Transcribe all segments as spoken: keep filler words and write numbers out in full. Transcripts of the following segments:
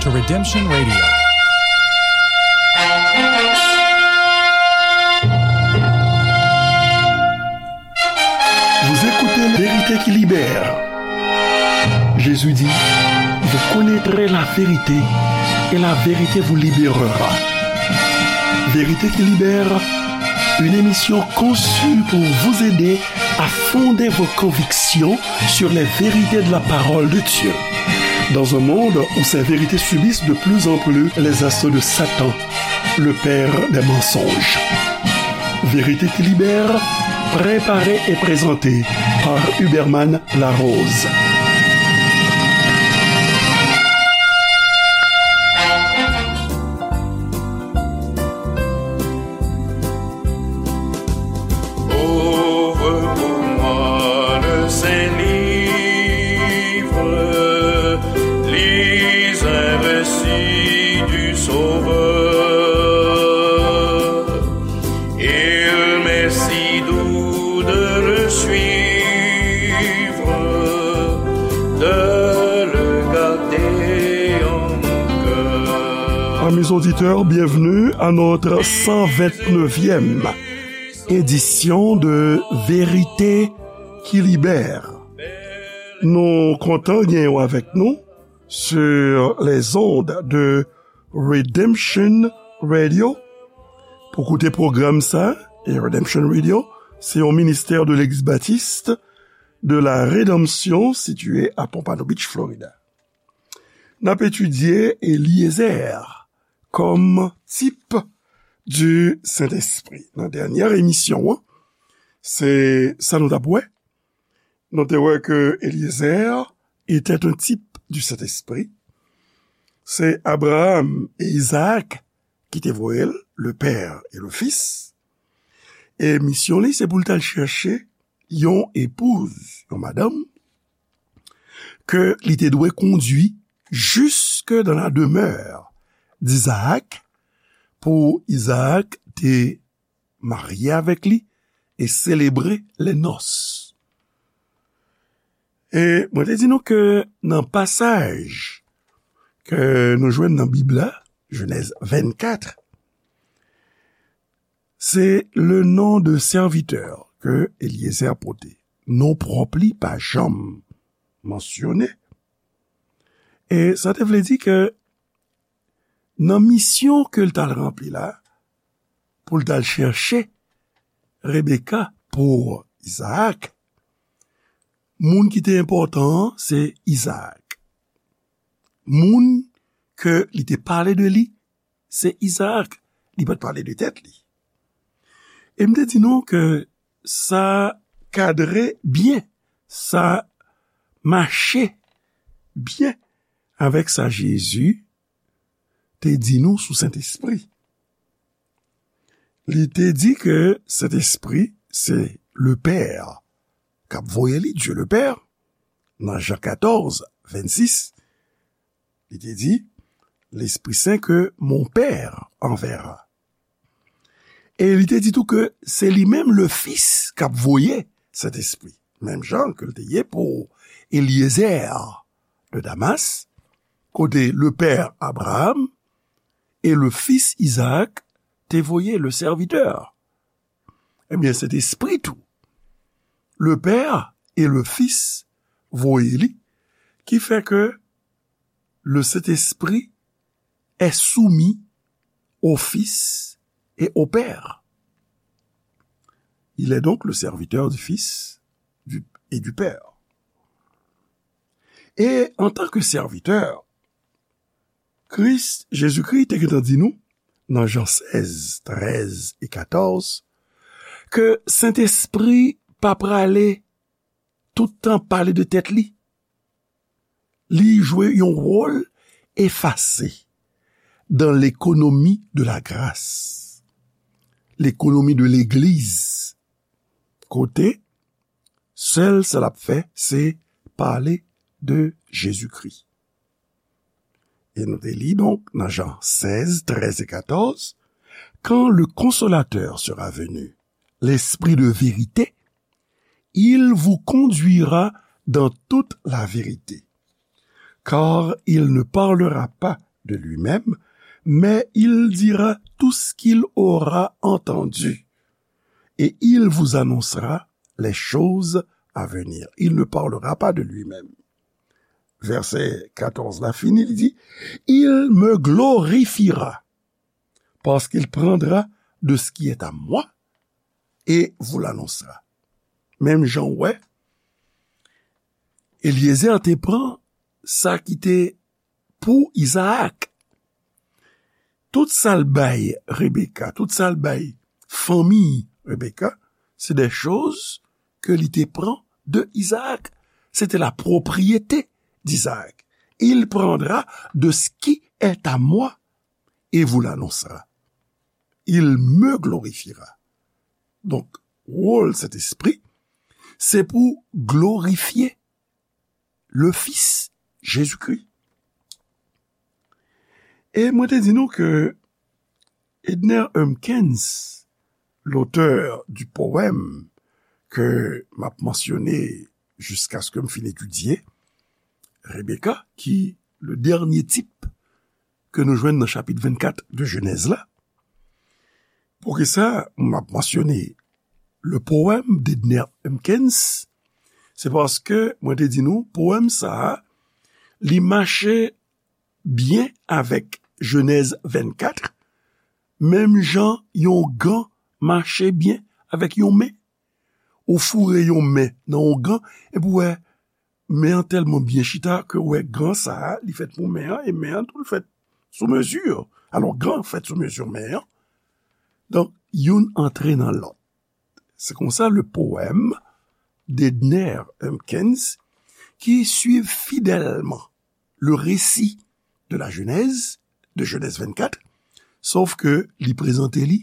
to Redemption Radio. Vous écoutez Vérité qui libère. Jésus dit, vous connaîtrez la vérité et la vérité vous libérera. Vérité qui libère, une émission conçue pour vous aider à fonder vos convictions sur les vérités de la parole de Dieu. Dans un monde où ces vérités subissent de plus en plus les assauts de Satan, le père des mensonges. Vérité qui libère, préparée et présentée par Huberman Larose. Ouvre pour moi le saint livre, lis un récit du Sauveur. Il m'est si doux de le suivre, de le garder en mon cœur. Amis auditeurs, bienvenue à notre cent vingt-neuvième édition de Vérité qui libère. Nou kontan gen w avèk nou sur les ondes de Redemption Radio. Pou koute pwogram sa, e Redemption Radio, se yon ministè de Legliz Batis de la Redanmsyon, sitiye a Pompano Beach, Florida. N ap etidye Eliezer kòm tip du Sentespri. Nan dènyè emisyon an, se sa nou t ap wè. Nou te wè ke Eliezer était un type du Saint-Esprit. Se Abraham e Izaak ki te voye l, le Père et le Fils. E misyon li, se pou l t al chèche yon epouz, yon madanm, ke li te dwe kondui jusque dans la demeure d'Isaac, pou Izaak te marye avèk li e selebre les noces. E mwen te di nou ke nan pasaj ke nou jwenn nan Bib la, Jenèz vennkat, se le nom de serviteur ke Eliezer pote. Non pwòp li pa janm mansyone. E sa te vle di ke nan misyon ke l t al ranpli la, pou l t al chèche Rebeka pou Izaak, moun ki te enpòtan an, se Izaak. Moun ke li te pale de li, se Izaak. Li pa t pale de tèt li. E m te di nou ke sa kadre byen, sa mache byen avèk sa Jezi te di nou sou Sentespri. Li te di ke Sentespri se le Père k ap voye li, Dieu le Père, nan Jan katòz, vennsis, li te di, L'Esprit Saint que mon Père enverra. E li te di tou ke se li menm le Fils k ap voye Sentespri. Menm jan ke l te ye pou Eliezer de Damas, kote le père Abraham et le fils Isaac te voye le serviteur. Ebyen, Sentespri tou, le Père et le Fils voye li, ki fè ke le Saint-Esprit est soumis au Fils et au Père. Il est donc le serviteur du Fils du- et du Père. E antanke sèvitè, Kris, Jezikri te gentan di nou, nan Jan sèz, trèz e katòz, ke Sentespri pa prale tout tan pale de tèt li. Li jwe yon wòl efase dans l'économie de la grâce, l'économie de legliz, kote sèl sa l ap fè, se pale de Jezikri. E nou te li, donk, nan Jan sèz, trèz e katòz, Quand le Consolateur sera venu, l'Esprit de vérité, il vous conduira dans toute la vérité, car il ne parlera pas de lui-même, mais il dira tout ce qu'il aura entendu, et il vous annoncera les choses à venir. Il ne parlera pas de lui-même. Vèsè katòz la fini, li di, il me glorifiera, parce qu'il prendra de ce qui est à moi et vous l'annoncera. Menm jan w wè, Eliezer te pran sa ki te pou Izaak. Tout sa l bay Rebeka, tout sa l bay fanmi Rebeka, se de choz ke li te pran de Izaak. Se te la propriyete d'Izaak. Il prendra de ce qui est à moi et vous l'annoncera. Il me glorifiera. Donk, wòl Sentespri, se pou glorifye le Fils, Jésus-Christ. E mwen te di nou ke Edner Humpkins, l'auteur du poème ke m ap mansyone jiskaske m fin etidye Rebeka, ki le dènye tip ke nou jwenn nan chapit vennkat de Jenèz la. Poukisa m ap mansyone le poème d'Edner Humpkins? Se paske mwen te di nou, powèm sa a, li mache byen avèk Jenèz vennkat, menm jan yon gan mache byen avèk yon men. Ou foure yon men nan yon gan, epi w wè men an tèlman byen chita ke w wè gan sa a, li fèt pou men an, e men an tou, li fèt sou mezi. Alò, gan fèt sou mezi men an. Donk, youn antre nan lòt. Se konsa le poème d'Edner Humpkins, qui suit fidèlement le récit de la Genèse, de Genèse vingt-quatre, sòf ke li prezante li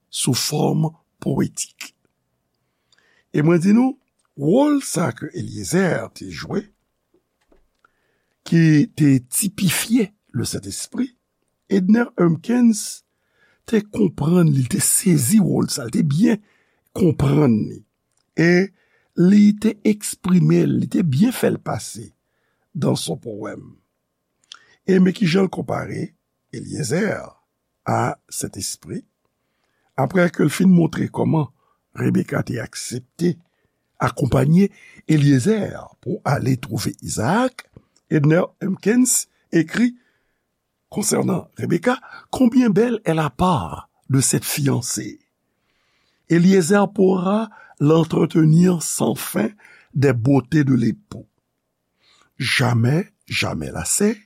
sou fòm powetik. E mwen di nou, wòl sa ke Eliezer te jwe, ki te tipifye le Sentespri, Edner Humpkins te konprann li, te sezi wòl sa, li te byen konprann li. E li te eksprime l, li te byen fè l pase dans son poème. E men kijan l konpare Eliezer a Sentespri. Apre ke l fin montre kòman Rebeka te aksepte akonpanye Eliezer pou ale twouve Izaak, Edner Humpkins ekri konsènan Rebeka, combien belle est la part de cette fiancée. Eliezer pourra l'entretenir sans fin des beautés de l'époux. Jamais, jamais lassée,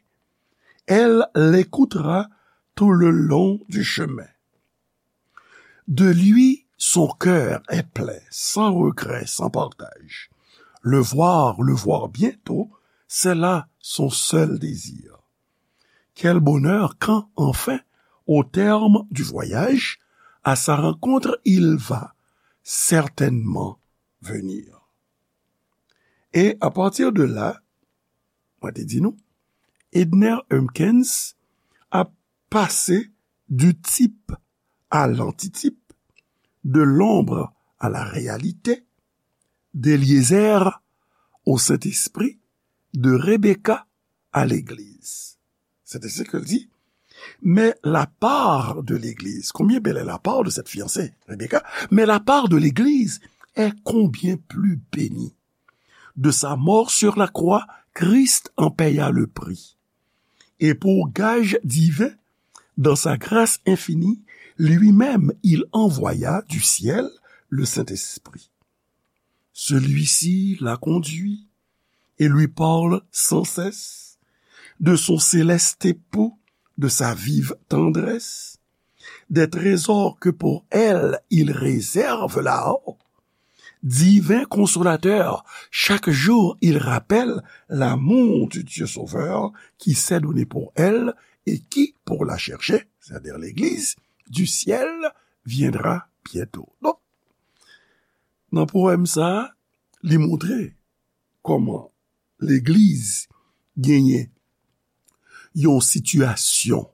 elle l'écoutera tout le long du chemin. De lui, son cœur est plein, sans regret, sans partage. Le voir, le voir bientôt, c'est là son seul désir. Quel bonheur quand, enfin, au terme du voyage, à sa rencontre il va certainement venir. E apati de la, mwen te di nou, Edner Humpkins ap pase du type à l'antitype, de l'ombre à la réalité, d'Eliezer au Saint-Esprit, de Rebecca à l'Église. C'est ainsi que dit, mais la part de l'Église, combien belle est la part de cette fiancée, Rebecca, mais la part de l'Église est combien plus bénie. De sa mort sur la croix, Christ en paya le prix. Et pour gage divin, dans sa grâce infinie, lui-même il envoya du ciel le Saint-Esprit. Celui-ci la conduit et lui parle sans cesse de son céleste époux, de sa vive tendresse, des trésors que pour elle il réserve là-haut. Divin consolateur, chaque jour il rappelle l'amour du Dieu Sauveur qui s'est donné pour elle et qui, pour la chercher, c'est-à-dire l'Église du ciel, viendra bientôt. Donk, nan powèm sa, li montre kòman legliz genyen yon sitiyasyon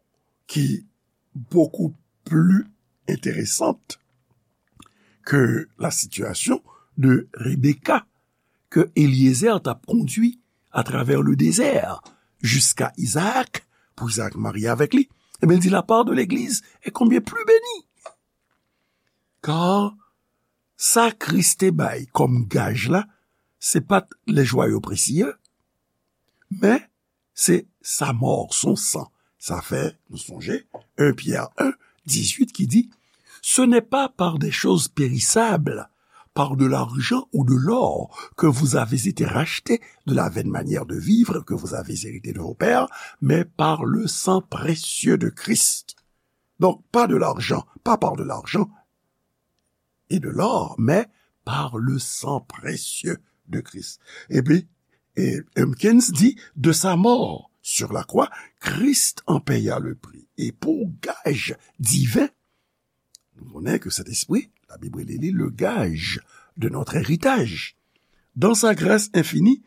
ki beaucoup plus intéressante que la situation de Rebecca, que Eliezer t ap kondui à travers le désert jusqu'à Isaac, pou Izaak marye avèk li. Ebyen, li di, la part de l'Église est combien plus bénie. Kar sa Kris te bay kòm gaj la, se pa t les joyaux précieux, men se sa mò, son san. Sa fè nou sonje en Pyè en, dizuit ki di, ce n'est pas par des choses périssables, par de l'argent ou de l'or, que vous avez été rachetés de la vaine manière de vivre que vous avez héritée de vos pères, mais par le sang précieux de Christ. Donc, pas de l'argent, pas par de l'argent et de l'or, mais par le sang précieux de Christ. Epi, e, Humpkins di, de sa mort sur la croix, Christ en paya le prix. E pou gaj diven, nou konnen ke Sentespri, Labib rele li le gage de notre héritage. Dans sa grâce infinie,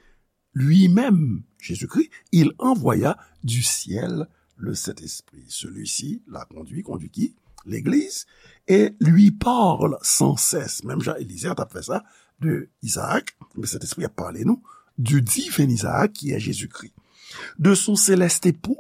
lui-même, Jésus-Christ, il envoya du ciel le Saint-Esprit. Celui-ci l'a conduit, conduit qui? L'Église, et lui parle sans cesse. Menm jan Eliezer t ap fè sa de Izaak, men Sentespri ap pale nou du divin Izaak qui est Jésus-Christ, de son céleste époux,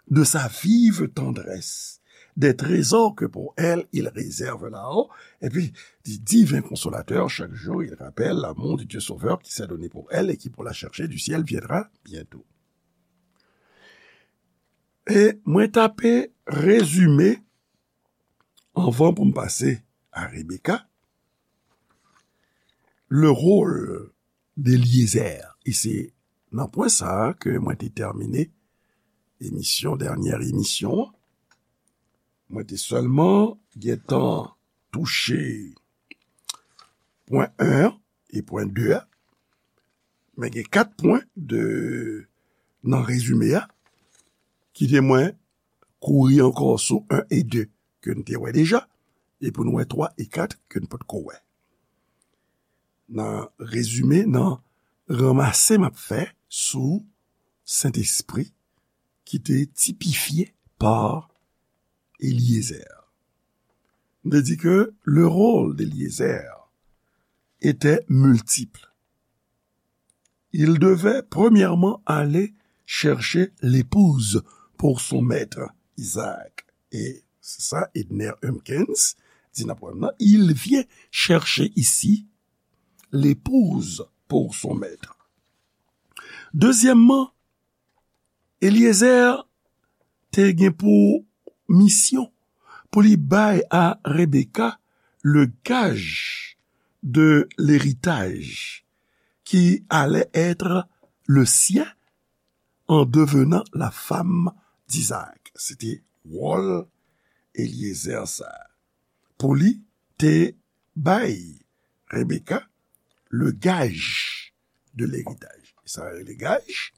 de sa vive tendresse, des trésors que pour elle il réserve là-haut. Et puis, du divin consolateur, chaque jour il rappelle l'amour du Dieu Sauveur qui s'est donné pour elle et qui pour la chercher du ciel viendra bientôt. E mwen t ape rezime, anvan pou m pase a Rebecca, le rôle d'Eliezer. E se nan pwen sa a ke mwen te tèmine emisyon, dènyè emisyon an. Mwen te sèlman gentan touche pwen en an e pwen de a. Men gen kat pwen de, nan rezime a, kite mwen kouri ankò sou en e de ke n te wè deja, e pou n wè twa e kat ke n potko wè. Nan rezime, nan ranmase m ap fè sou Sentespri ki te tipifye pa Eliezer. M te di ke le rôle d'Eliezer était multiple. Il devait premièrement aller chercher l'épouse pour son maître, Isaac. Et c'est ça, Edner Humpkins dit nan pwen an, il vient chercher ici l'épouse pour son maître. Deuxièmement, Eliezer te gen pou misyon pou li bay a Rebecca le gage de l'héritage qui allait être le sien en devenant la femme d'Isaac. Se te wòl Eliezer sa a. Pou li te bay Rebecca le gage de l'héritage. Sa yo rele gaj.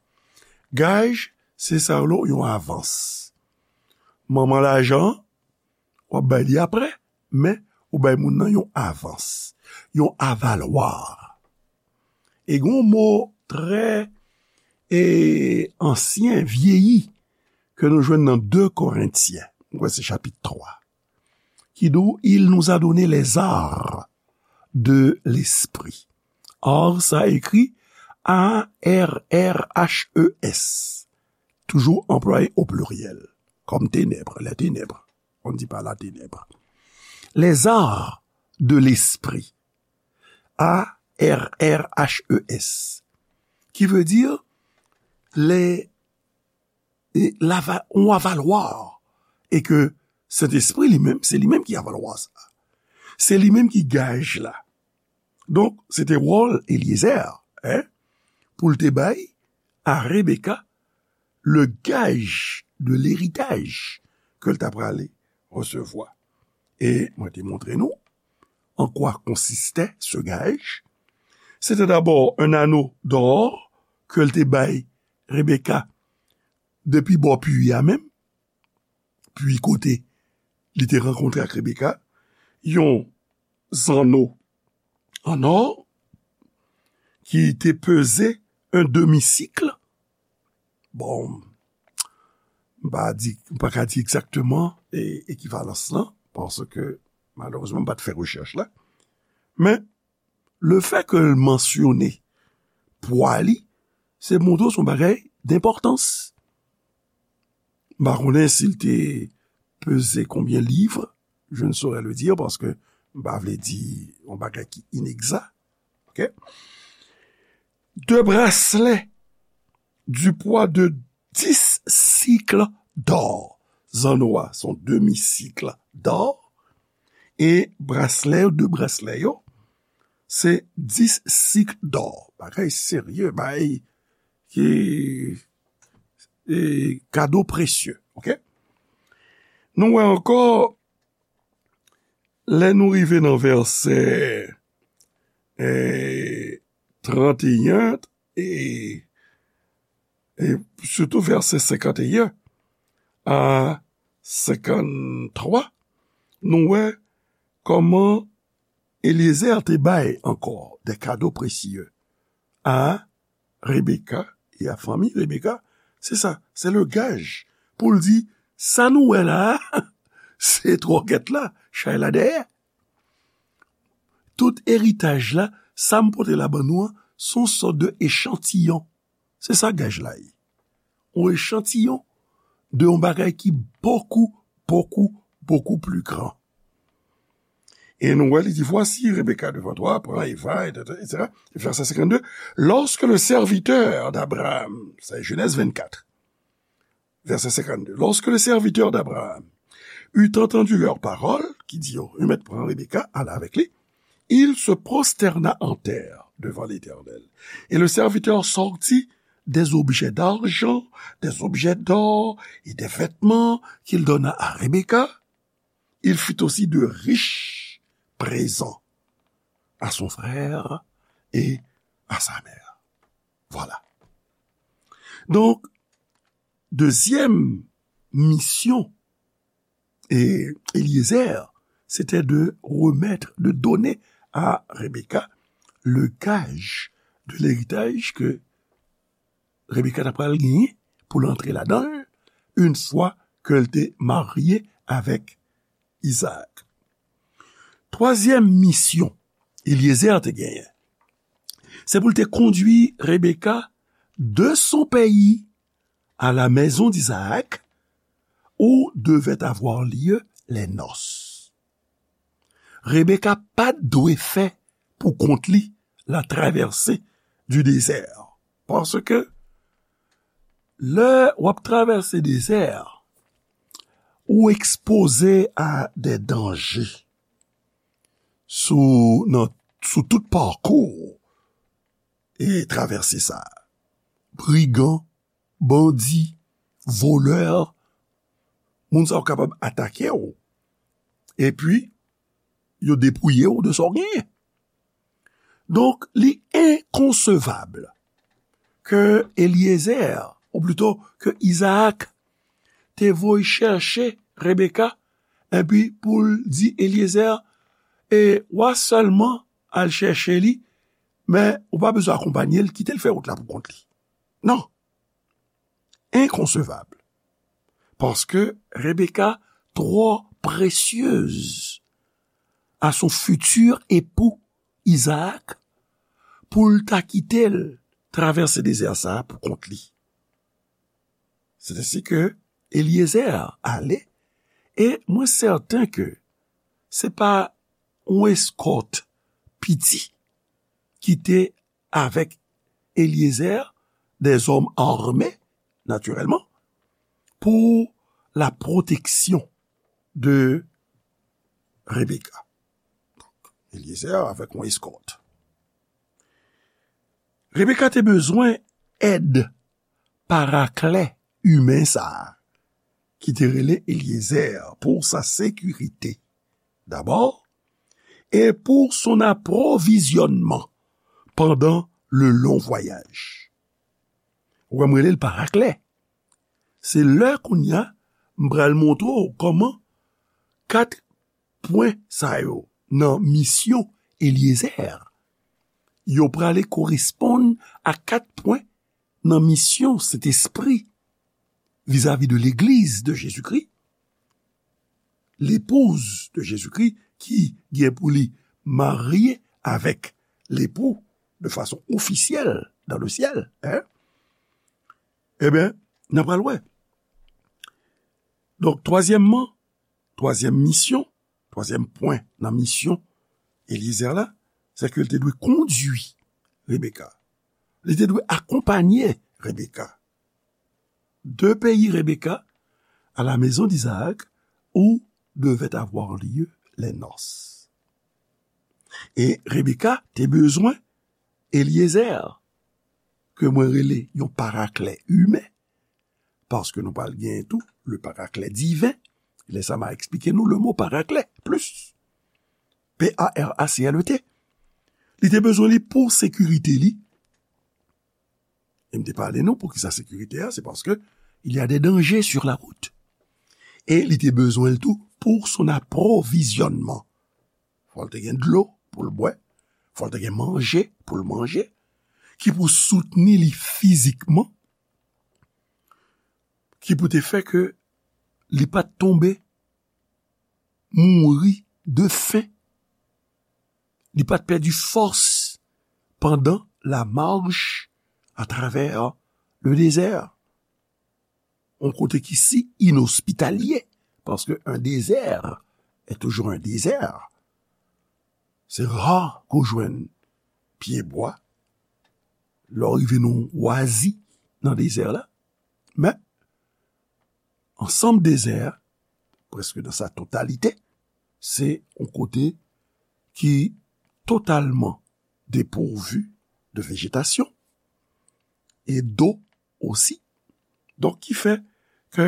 Gaj, se sa yo rele yon avans. Manman lajan, w ap bay li apre, men ou bay moun nan yon avans, yon avalwa. E gen yon mo trè, e, ansyen, vyeyi, ke nou jwenn nan de Korentyen, mwen kwè se chapit twa, ki di w, il nous a donné les arts de l'esprit. Art sa ekri A R R H E S. Toujou anplwaye o pliryèl, kòm tenèb, les ténèbres. On ne dit pas la ténèbre. Les arts de l'esprit. A R R H E S. Ki vle di, les, e, lava-, yon avalwa. E ke Sentespri li menm, se li menm ki avalwa sa. Se li menm ki gaj la. Donk, se te wòl Eliezer, en, pou l te bay a Rebecca le gage de l'héritage ke l ta prale resevwa. E mwen te montre nou an kwa konsiste ce gage. Se te dabò un anneau d'or ke l te bay Rebecca depi bò pwi a menm, pwi kote li te rankontre ak Rebecca, yon zanno an ò ki te peze un demi-cycle. Bon, m pa di, m pa ka di egzakteman, e, ekivalans lan, paske malerezman m pa t fè rechèch la. Men, le fè ke l mansyone pwa li, se montre w se yon bagay denpòtans. M pa konnen si l te peze konbyen liv, je ne saurais le dire, paske m pa vle di yon bagay ki inegza. Ok? Deux bracelets du poids de dix cycles d'or. Zanno a, se yon demi cycle d'or. E braslè yo, de braslè yo, se dis cycles d'or. Bagay serye, bagay ki, e, kado presye, ok? Nou wè ankò, lè nou rive nan vèsè, e, trannteyen, e, e sitou vèsè senkanteyen a senkanntwa, nou wè kòman Eliezer te bay ankò de kado presye a Rebeka e a fanmi Rebeka. Se sa, se le gaj pou l di, sa nou wè la a, se twòkèt la, chay la dèyè. Tout eritaj la, sa m pote la ban nou an, se yon sòt de echantiyon. Se sa gaj la ye. Yon echantiyon de yon bagay ki bokou, bokou, bokou pli gran. E nou wè, li di, voici Rebecca devant toi, prends Eva, et cetera, et cetera. Vèsè senkann de, lorsque le serviteur d'Abraham, sa Jenèz vennkat, vèsè senkann de, lorsque le serviteur d'Abraham eut entendu leurs paroles, ki di yo, yo mèt pran Rebecca, al avèk li, il se prosterna en terre devant l'Éternel. Et le serviteur sortit des objets d'argent, des objets d'or et des vêtements qu'il donna à Rebecca. Il fit aussi de riches présents à son frère et à sa mère. Voilà. Donc, deuxième mission, e, Eliezer, c'était de remettre, de donner à Rebecca le gage de l'héritage que Rebecca ta pral genyen pou l antre ladan l, une fois ke l te marye avèk Izaak. Twazyèm misyon Eliezer te genyen, se pou l te kondui Rebecca de son pays à la maison d'Isaac, où devaient avoir lieu les noces. Rebecca pa t dwe fè pou kont li la traversée du désert. Paske lè w ap travèse dezè, ou ekspoze a de danje sou, nan, sou tout pakou e travèse sa. Brigan, bandi, volè, moun sa yo kapab atake w. Epi, yo depouye w de sa w genyen. Donk, li enkonsevab ke Eliezer, ou plito ke Izaak, te voye chèche Rebeka, epi pou l di Eliezer, e w a sèlman al chèche li, men ou pa bezwen akonpanye l, kite l fè wout la pou kont li. Non. Enkonsevab. Paske Rebecca twò presyez a son fitir epou Izaak pou l ta kite l travèse dezè sa a pou kont li. Se ensi ke Eliezer ale, e mwen sèten ke se pa yon eskòt piti ki te avèk Eliezer, des hommes armés, naturellement, pour la protection de Rebecca. Eliezer avèk yon eskòt. Rebecca te bezwen èd paraklè imen sa a, ki te rele Eliezer, pour sa sécurité, d'abord, et pour son approvisionnement pendant le long voyage. Ou wè m rele l paraklè. Se lè kounye a, m pral montre w kòman kat pwen sa yo nan misyon Eliezer, yo prale koresponn a kat pwen nan misyon Sentespri vizavi de legliz de Jezikri, l'épouse de Jésus-Christ, ki gen pou li marye avèk lepou de fason ofisyèl dans le ciel, hein? Ebyen, n a pral wè. Donk, twazyèmman, twazyèm misyon, twazyèm pwen nan misyon Eliezer la, se ke l te dwe kondui Rebeka. Li te dwe akonpanye Rebeka. De peyi Rebeka, à la maison d'Isaac, où devaient avoir lieu les noces. E Rebeka te bezwen Eliezer, ke mwen rele yon paraklè imen, paske nou pral gen tou le paraklè diven. Lè sa m a eksplike nou le mo paraklè plis. P A R A C L E T. Li te bezwen li pou sekirite li. E m te pale nou pou ki sa sekirite a, se paske il y a des dangers sur la route. E li te bezwen l tou pour son approvisionnement. Fò l te gen dlo pou l bwè, fò l te gen manje pou l manje, ki pou soutni li fizikman, ki pou te fè ke li pa t tonbe, mouri de fen, li pa t pèdi fòs pandan la marche à travers le désert. Yon kote ki si inospitalye, paske un désert est toujours un désert. Se ra ke w jwenn pyebwa lè w rive nan yon wazi nan dezè la. Men, ansanm dezè a, prèske nan sa totalite, se yon kote ki totalman depourvu de vejetasyon e do osi. Donk, ki fè ke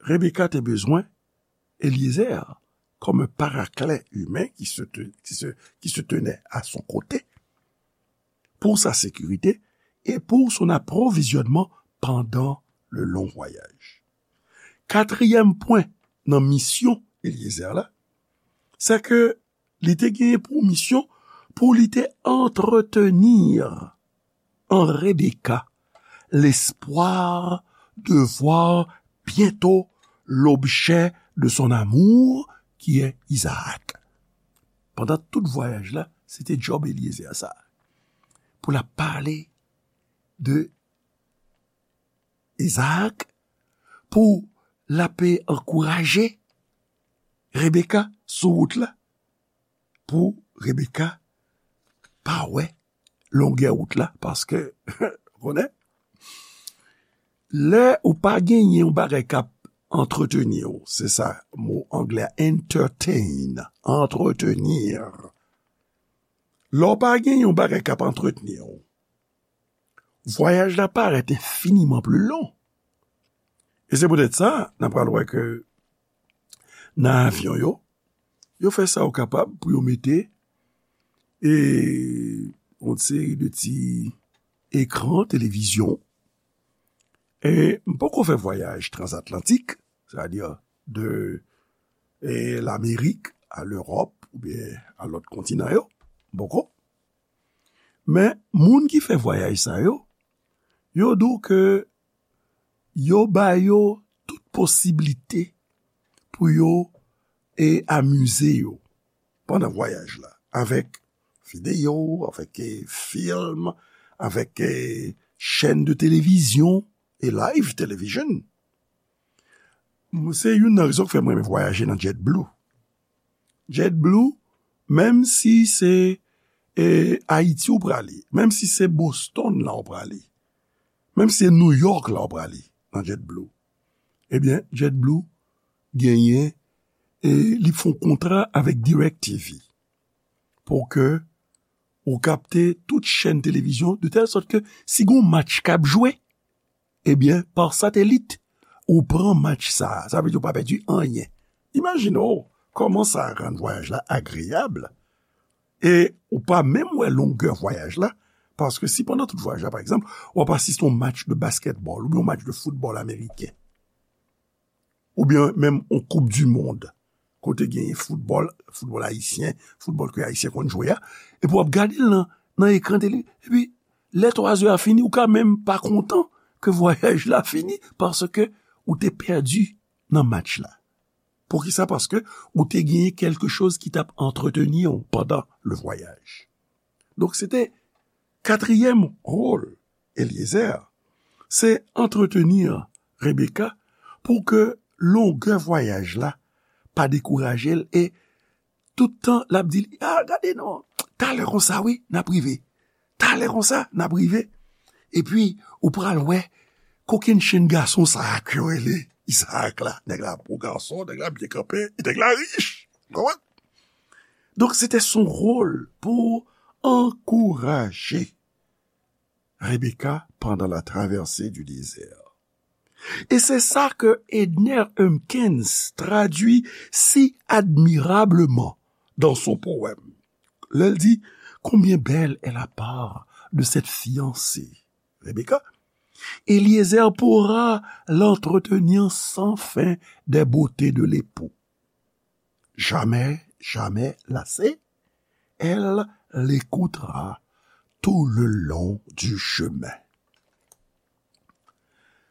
Rebeka te bezwen Eliezer comme un paraclet humain qui se, te- qui se, qui se tenait à son côté pour sa sécurité et pour son approvisionnement pendant le long voyage. Katriyèm pwen nan misyon Eliezer la, se ke li te genyen pou misyon pou li te entretenir en Rebecca l'espoir de voir bientôt l'objet de son amour, qui est Isaac. Pandan tout vwayaj la, se te djòb Eliezer sa. Pou l ap pale de Isaac, pou l ap ankouraje Rebecca sou wout la, pou Rebecca pa wè longè wout la, paske, konnen, lè ou pa genyen yon bagay k ap antreteni w, se sa mo anglè a, entertain, entretenir. Lè w pa genyen yon bagay k ap antreteni w, vwayaj la parèt enfiniman pli long. E se poutèt sa, n ap pral wè ke nan avyon yo, yo fè sa yo kapab pou yo mete e yon seri de ti ekran televizyon. E m poko fè vwayaj transatlantik, sètadi de e Lamerik a Lewòp oubyen a lòt kontinan yo, m poko. Men moun ki fè vwayaj sa yo, yo di w ke yo ba yo tout posiblite pou yo e amize yo pandan vwayaj la, avèk videyo, avèk e fim, avèk e chèn de televizyon e live television. Se youn nan rezon k fè mwen renmen vwayaje nan JetBlue. JetBlue, menm si se e Ayiti ou prale, menm si se Boston la ou prale, menm si se New York la ou prale nan JetBlue, ebyen, JetBlue genyen e li fè yon kontra avèk DirecTV pou ke ou kapte tout chèn televizyon, de tèl sòt ke si gen yon match k ap jwe, ebyen, pa satelit, ou pran match sa a. Sa vle di ou pa pèdi anyen. Imajine w kòman sa rann vwayaj la agreyab. E ou pa menm wè longè vwayaj la, paske si pandan tout vwayaj la, pa egzanp, w ap asiste yon match de basketball oubyen yon match de foutbòl ameriken, oubyen menm yon koup di mond, kote genyen foutbòl, foutbòl ayisyen, foutbòl ke Ayisyen konn jwe a, epi w ap gade l nan, nan ekran tele, epi lè twa zè a fini, ou ka menm pa kontan ke vwayaj la fini, paske ou te pèdi nan match la. Poukisa? Paske ou te genyen kèlke choz ki t ap antreteni w pandan le vwayaj. Donk, se te katriyèm wòl Eliezer, se antreteni Rebecca pou ke longè vwayaj la pa dekouraje l, e tout tan l ap di li, "A, gade non, talè konsa, wi, n ap rive. Talè konsa, n ap rive." Epi, ou pral wè kokennchenn gason sa a ke yo rele Izaak la. Nèg la bon gason, nèg la byen kanpe, e nèg la rich. Konprann? Donk, se te son wòl pou ankouraje Rebecca pendant la traversée du désert. Et c'est ça que Edner Humpkins traduit si admirablement dans son poème. Lè l di, "Combien belle est la part de cette fiancée, Rebecca. Eliezer pourra l'entretenir sans fin des beautés de l'époux. Jamais, jamais lassée, elle l'écoutera tout le long du chemin."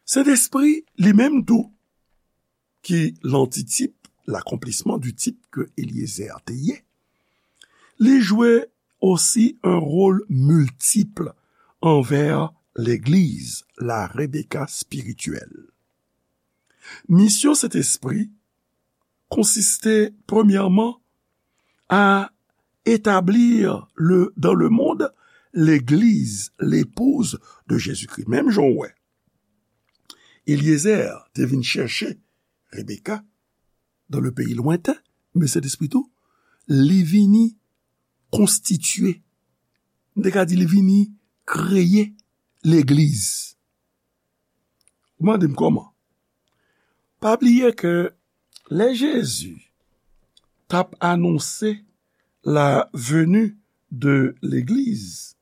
Sentespri, li menm tou, ki lantitip, l'accomplissement du type ke Eliezer te ye, li jwe osi un rôle multiple envers legliz, la Rebecca spirituelle. Misyon Sentespri konsiste, premyèman, a établir le, dans le monde, legliz, l'épouse de Jésus-Christ. Menm jan w wè, Eliezer te vin chèche Rebecca dans le pays lointain, men Sentespri tou, li vini konstitye, m te ka di li vini kreye legliz. Ou mande m kòman? Pa bliye ke lè Jezi t ap anonse la venue de legliz,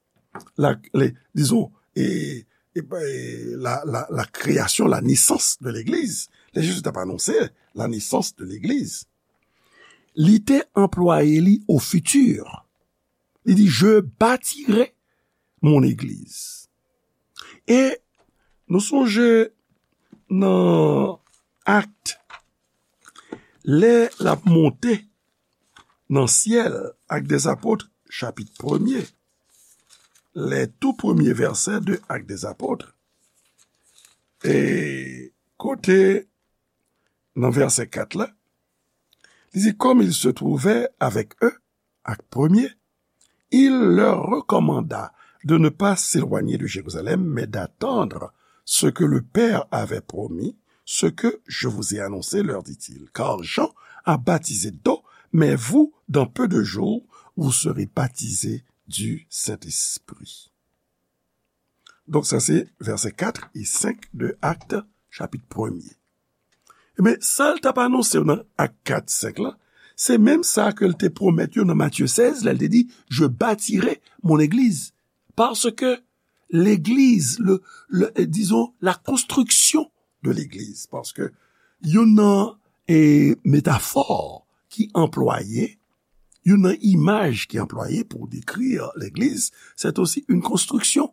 la, le, dizon, e, e, e, la, la, la création, la naissance de l'église, lè Jezi t ap anonse la naissance de l'église, li te anplwaye li au futur. Li di, "Je bâtirai mon église." E nou sonje nan Akt, lè l ap monte nan syèl, Actes des Apôtres, chapit premye, les tout premiers versets de Actes des Apôtres, e kote nan vèsè kat la, li di, "Comme il se trouvait avec eux, Acte premier, il leur recommanda de ne pas s'éloigner de Jérusalem, mais d'attendre ce que le Père avait promis, ce que je vous ai annoncé, leur dit-il, car Jean a baptisé d'eau, mais vous, dans peu de jours, vous serez baptisés du Saint-Esprit." Donk, sa se vèsè kat e senk de Akt, chapit premye. Ebyen, sa l t ap anonse yo nan Akt kat, senk la, se menm sa ke l te pwomèt yo nan Matye sèz, lè l te di, "Je bâtirai mon église." Paske legliz, le, le, eh, dizon, la konstriksyon de legliz, paske youn nan, eh, metafò ki anplwaye, youn nan imaj ki anplwaye pou dekri legliz, c'est aussi une construction.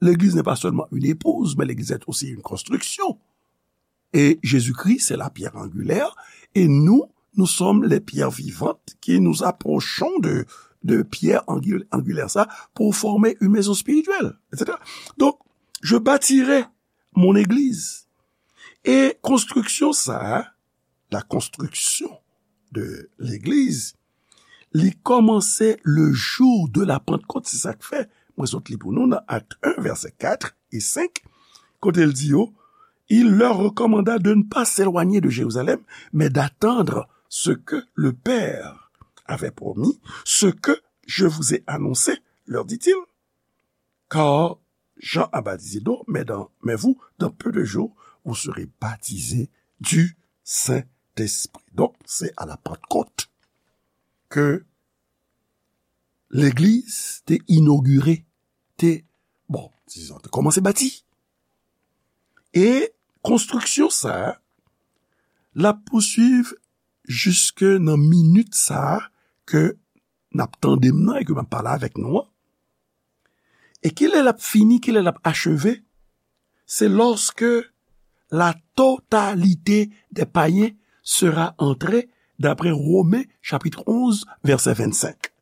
L'église n'est pas seulement une épouse, mais l'église est aussi une construction. Et Jésus-Christ, c'est la pierre angulaire, et nous, nous sommes les pierres vivantes qui nous approchons de, de pierre angu-, angulaire, ça, pour former une maison spirituelle, et cetera. Donc, je bâtirai mon église. E konstriksyon sa a, la construction de l'église, li kòmanse le jour de la Pentecôte, se sa k fè mwen sot li pou nou nan Akt en, vèsè kat e senk, kote l di yo, "Il leur recommanda de ne pas s'éloigner de Jérusalem, mais d'attendre ce que le Père avait promis, ce que je vous ai annoncé, leur dit-il." Car Jean a baptisé d'eau, mais dans, mais vous, dans peu de jours, vous serez baptisés du Saint-Esprit. Donk, se a la Pantkot ke legliz te inogire, te, bon, dizon, te kòmanse bati. E konstriksyon sa a, l ap pouswiv jiske nan minit sa a ke n ap tande m nan e ke m ap pale avèk nou an. E kilè l ap fini, kilè l ap acheve? C'est lorsque la totalité des païens sera entrée, d'après Romains chapitre onze, verset vingt-cinq.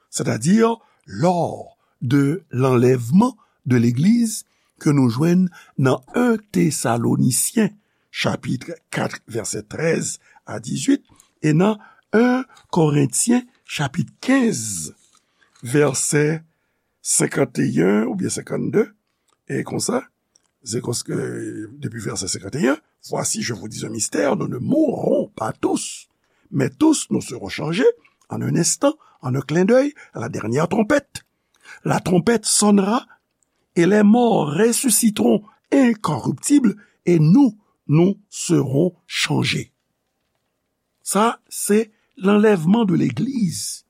C'est-à-dire lors de l'enlèvement de l'église ke nou jwenn nan en Thessaloniciens chapit kat, vèsè trèz a dizuit, e nan en Korentyen, chapit kenz, vèsè senkanteyen oubyen senkannde, e konsa, se konsa ke, depi vèsè senkanteyen, Voici, je vous dis un mystère, nous ne mourrons pas tous, mais tous nous serons changés en un instant, en un clin d'œil, à la dernière trompette. La trompette sonnera et les morts ressusciteront incorruptibles et nous, nous serons changés. Sa, se l'enlèvement de l'Église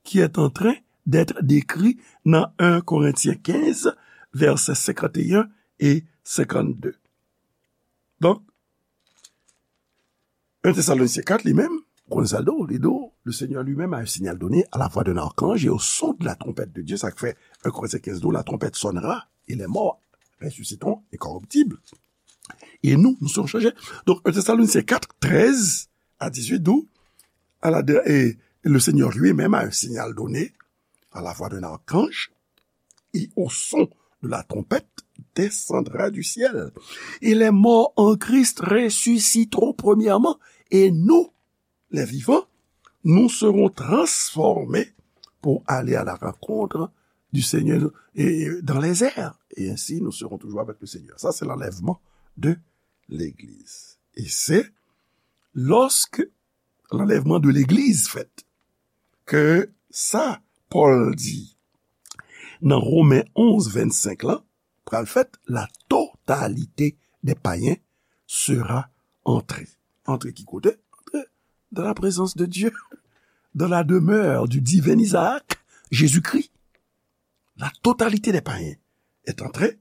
qui est en train d'être décrit dans un Corinthiens quinze, versets cinquante et un et cinquante-deux. Donk, en Thessaloniciens quatre, li menm, ou konnen sa l di w, li di w, le Seigneur lui-même a un signal donné à la voix d'un archange et au son de la trompette de Dieu, sa k fè en Corinthiens quinze di w, la trompette sonnera et les morts ressusciteront incorruptibles. Et nous, nous serons changés. Donc, en Thessaloniciens quatre, treize à dix-huit, d'où à la, et le Seigneur lui-même a un signal donné à la voix d'un archange et au son de la trompette descendra du ciel. Et les morts en Christ ressusciteront premièrement, et nous, les vivants, nous serons transformés pour aller à la rencontre du Seigneur et dans les airs. Et ainsi, nous serons toujours avec le Seigneur. Ça, c'est l'enlèvement de l'Église. Et c'est lorsque l'enlèvement de l'Église fèt, ke sa Pòl di nan Romen onz vennsenk lan, pral fèt, la totalité des païens sera entrée. Antre ki kote? Antre dans la présence de Dieu, dans la demeure du divin Isaac, Jésus-Christ. La totalité des païens est entrée,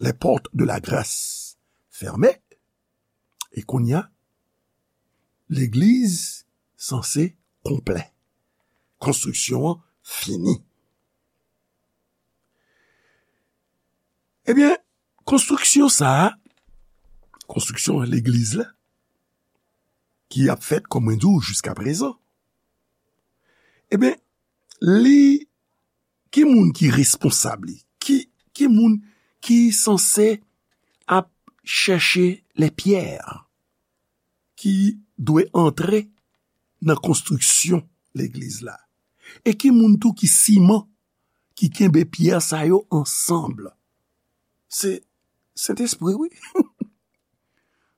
les portes de la grâce fermées, e kounye a, legliz sanse konplè. Konstriksyon an fini. Ebyen, konstriksyon sa a, konstriksyon legliz la, ki ap fèt, kòm mwen di w, jiskaprezan, ebyen, li, ki moun ki responsab li? Ki, ki moun ki sanse ap chèche lè pyè ki dwe antre nan konstriksyon legliz la? E ki moun tou ki siman, ki kenbe pyè sa yo ansanm? Se Sentespri, wi.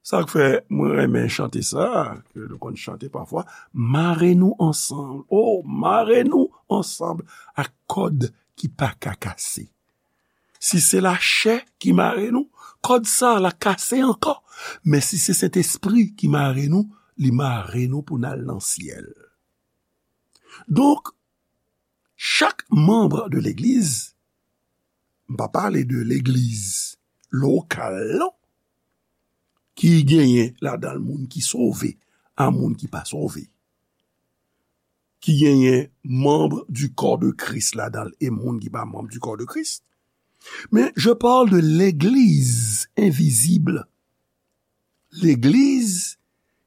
Sa k fè mwen renmen chante sa, ke nou konn chante pafwa, mare nou ansanm. O, mare nou ansanm ak kòd ki pa ka kase. Si se lachè ki mare nou, kòd sa la kase ankò. Men si se Sentespri ki mare nou, li mare nou pou n al nan syèl. Donk, chak manm de legliz, m pa pale de legliz lokal, non, ki genyen ladan l moun ki sove a moun ki pa sove, ki genyen manm du corps de Christ ladan l e moun ki pa manm du corps de Christ. Men, je parle de legliz envizib. Legliz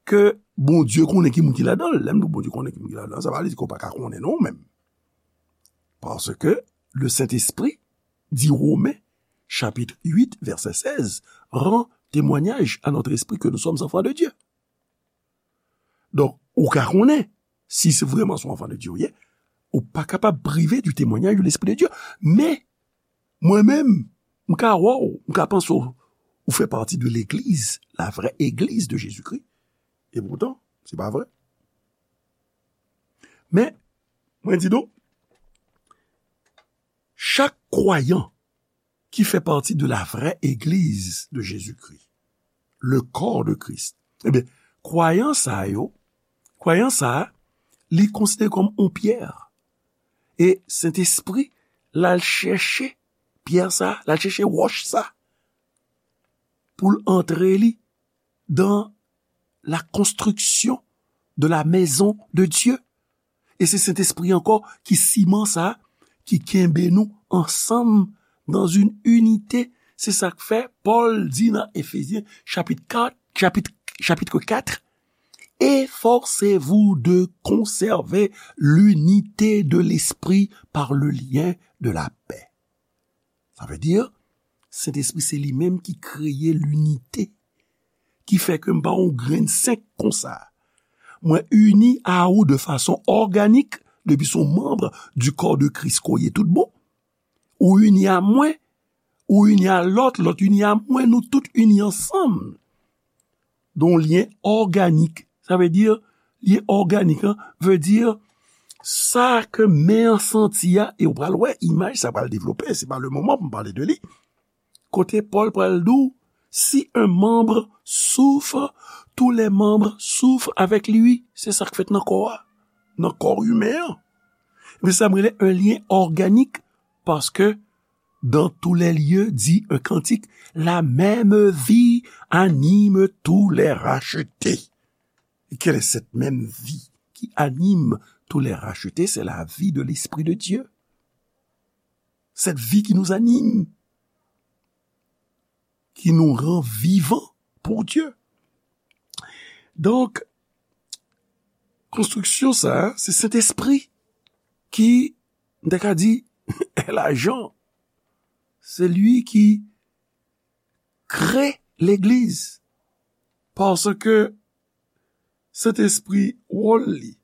ke Bondye konnen ki moun ki ladan l. Lè m di w Bondye konnen ki moun ki ladan l, sa pa vle di ke w pa ka konnen non menm. Paske le Sentespri, di Women, chapit uit, vèsè sèz, rend témoignage à notre esprit que nous sommes enfants de Dieu. Donk, ou ka konnen si se vrèman se yon enfant de Dieu ou ye, ou pa kapab prive du témoignage de l'Esprit de Dieu. Men, mwen menm, m ka wè w, m ka panse w, ou fè pati de legliz, la vraie église de Jésus-Christ. E poutan, se pa vre. Men, mwen di nou, chak kwayan ki fè pati de la vraie église de Jésus-Christ, le corps de Christ. Ebyen, kwayan sa yo, kwayan sa a, li konsidere kòm yon pyè. E Sentespri, l al chèche pyè sa, l al chèche wòch sa, pou l antre li dans la construction de la maison de Dieu. E se Sentespri ankò ki siman sa, ki kenbe nou ansanm dans une unité. Se sa k fè Pòl di nan Efezyen chapit kat, chapit, chapitre quatre, efforcez-vous de conserver l'unité de l'esprit par le lien de la paix. Sa vle di, Sentespri se li menm ki kreye linite. ki fè ke m pa yon grenn senk konsa. Mwen ini a ou de fason òganik, depi se yon manm di kò de Kris ke w ye tout bon. Ou ini a mwen, ou ini a lòt, lòt ini a mwen, nou tout ini ansanm. Donk, lyen òganik. Sa vle di, lyen òganik, an, vle di, sa ke men an santi a, e w pral wè, imaj sa pral devlope, se pa le moman pou m pale de li. Kote Pòl pral di w, si un membre souffre, tous les membres souffrent avec lui. Se sa k fèt nan kò a, nan kò imen an. Men sa m rele un lien organique, paske dans tous les lieux, dit un cantique, la même vie anime tous les rachetés. Et quelle est cette même vie qui anime tous les rachetés? C'est la vie de l'Esprit de Dieu. Cette vie qui nous anime, qui nous rend vivants pour Dieu. Donk, konstriksyon sa a, se Sentespri ki, m ta ka di, est l'agent. C'est lui qui crée l'Église. Paske Sentespri, wòl li,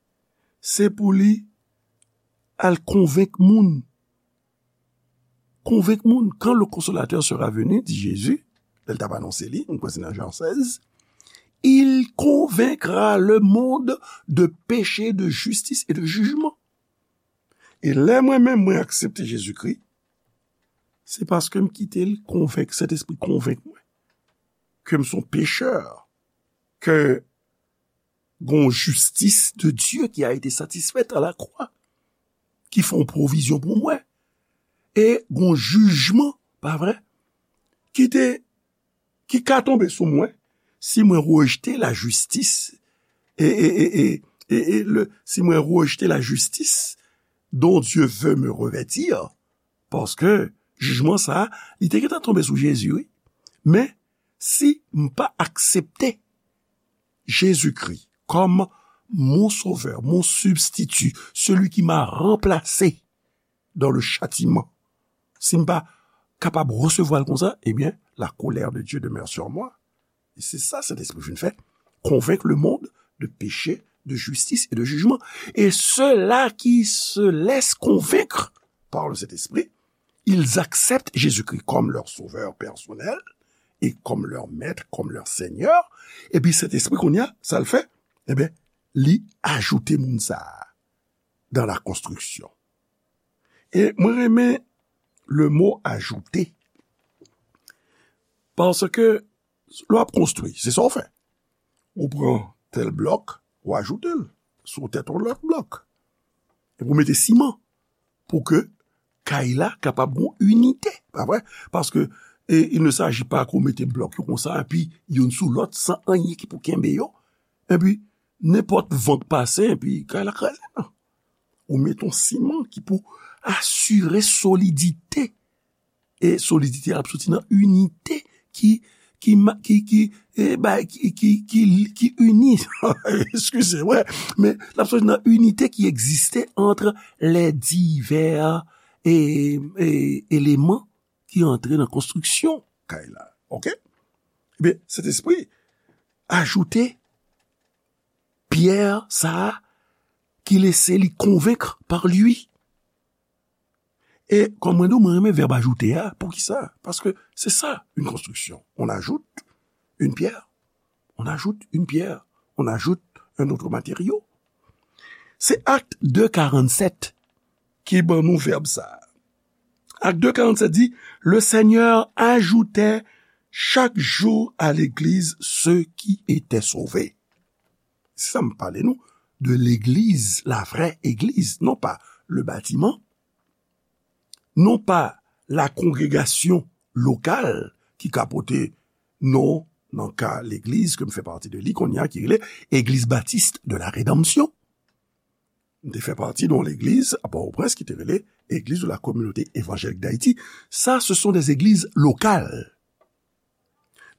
se pou li al konvenk moun. Konvenk moun. Quand le Consolateur sera venu, dit Jésus, lè l t ap anonse li, nou kwè se nan Jan sèz, il convaincra le monde de péché, de justice et de jugement. E lè mwen menm, mwen aksepte Jezikri, se paske m kite l konvenk, Sentespri konvenk mwen ke m se yon pechè, ke gon jistis de Dye ki a ete satisfèt a la kwa, ki fè yon pwovizyon pou mwen. E gon jijman, pa vre, ki te, ki ka tonbe sou mwen si mwen rejte la jistis, e, e, e, e, e, e le, si mwen rejte la jistis dont Dieu veut me revêtir, paske jijman sa a, li te gentan tonbe sou Jezi, wi. Men, si m pa aksepte Jezikri kòm mon sovè, mon sibstiti, seli ki m'a ranplase dans le châtiment, si m pa kapab resevwa l konsa, ebyen, la colère de Dieu demeure sur moi. E se sa Sentespri vin fè, convaincre le monde de péché, de justice et de jugement. Et ceux-là qui se laissent convaincre par le Saint-Esprit, ils acceptent Jésus-Christ comme leur sauveur personnel et comme leur maître, comme leur Seigneur. Epi Sentespri, kounye a, sa l fè? Ebyen, li ajoute moun sa a dans la construction. E mwen renmen le mot ajouter. Paske lè w ap konstwi, se sa w fè. Ou pran tèl blòk, ou ajoute l sou tèt yon lòt blòk. Epi ou mete siman pou ke kay la kapab gon inite, pa vre? Paske, e, il ne s'agit pas ke w mete blòk yo konsa, epi youn sou lòt, san anyen ki pou kenbe yo. Epi, nenpòt van k pase, epi kay la kraze, non. Ou mete yon siman ki pou asire solidite. E solidite a ap soti nan inite ki, ki, ma- ki, ki, e, ba- ki, ki, ki, ki ini. Eskize, wè. Men l ap soti nan inite ki egziste entre les divers, e, e, éléments ki antre nan konstriksyon kay la. Oke? Ebyen, Sentespri ajoute pyè sa a ki lese li convaincre par lui. E kòm mwen di w, mwen renmen vèb ajoute a. Poukisa? Paske se sa, une construction. On ajoute une pierre, on ajoute une pierre, on ajoute un autre matériau. Se Actes deux quarante-sept ki ban nou vèb sa a. Actes deux quarante-sept dit, le Seigneur ajoutait chaque jour à l'église ceux qui étaient sauvés. Se sa m pale nou de legliz, la vraie église, non pas le bâtiment, non pas la congrégation locale ki ka pote non, nan ka legliz ke m fè pati de li kounye a, ki rele Église Baptiste de la Rédemption. M te fè pati de yon legliz a Pòtoprens ki te rele Église de la Communauté Évangélique d'Haïti. Ça, ce sont des églises locales.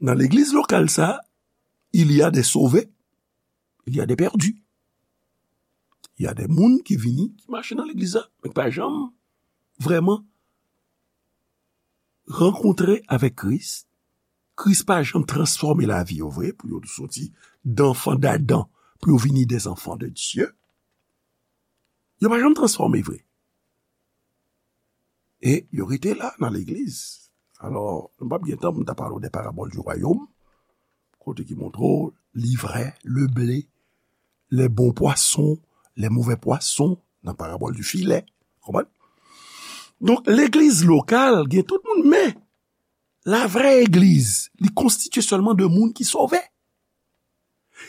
Nan legliz lokal sa, il y a des sauvés, il y a des perdus. Il y a des moun ki vini, ki mache nan legliz la, men ki pa janm vrèman rankontre avèk Kris, Kris pa janm transfòme lavi yo vre, pou yo soti danfan d'Adan, pou yo vini des enfants de Dieu. Yo pa janm transfòme vre. E yo rete la nan legliz. Alò, nou p ap gen tan pou m ta pale w de parabòl di wayòm, kote ki montre w livrè, le blé, les bons poissons, les mauvais poissons, nan parabòl di filè. Konprann? Donk, legliz lokal gen tout moun, men la vraie église, li konstitye sèlman de moun ki sove.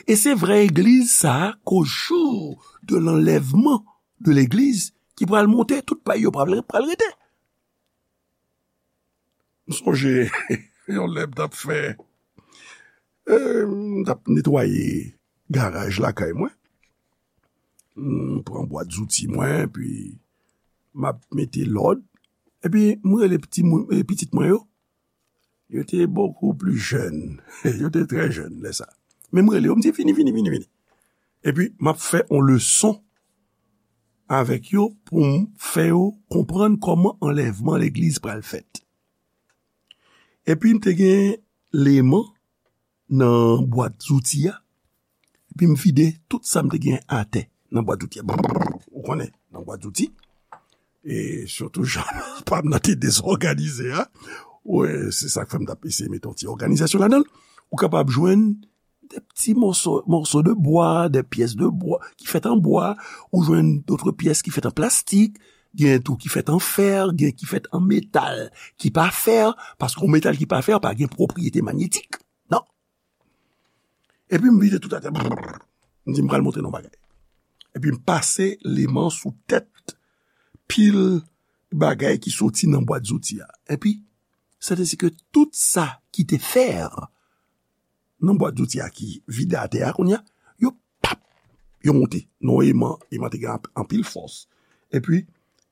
E se vrè egliz sa a, qu'au jour de l'enlèvement de l'église, ki pral monte, tout pay yo pral, pral rete. M sonje, yon lè m t ap fè, e, m t ap netwaye garaj lakay mwen. M pran bwat zouti mwen, epi m ap mete lòd. Epi m rele piti moun, e, pitit mwen yo. Yo te beaucoup plus jeunes. Yo te trè jèn lè sa. Men m rele yo, m di, "Vini, vini, vini, vini." Epi, m ap fè yon leson avèk yo pou m fè yo konprann kòman anlèvman legliz pral fèt. Epi, m te gen leman nan bwat zouti a. Epi, m vide tout sa m te gen atè nan bwat zouti a. Brrr, ou konnen, nan bwat zouti. E sitou, jan pa m nan te dezòganize a. Wi, se sa k fè m t ap eseye mete yon ti òganizasyon ladan l. Ou kapab jwenn de pti mòso, mòso de bwa, de pyès de bwa ki fèt an bwa, ou jwenn dòt pyès ki fèt an plastik, gen tou ki fèt an fè, gen ki fèt an metal ki pa fè, paske yon metal ki pa fè pa gen pwopriyete manyetik. Non. Epi m vide tout atè. Brrr. M di, "M pral montre nou bagay." Epi m pase leman sou tèt pil bagay ki soti nan bwat zouti a. Epi, sètèsi ke tout sa ki te fè nan bwat zouti a ki vide atè a kounye a, yo pap, yo monte. Non, eman, eman te gen anp-, anpil fòs. Epi,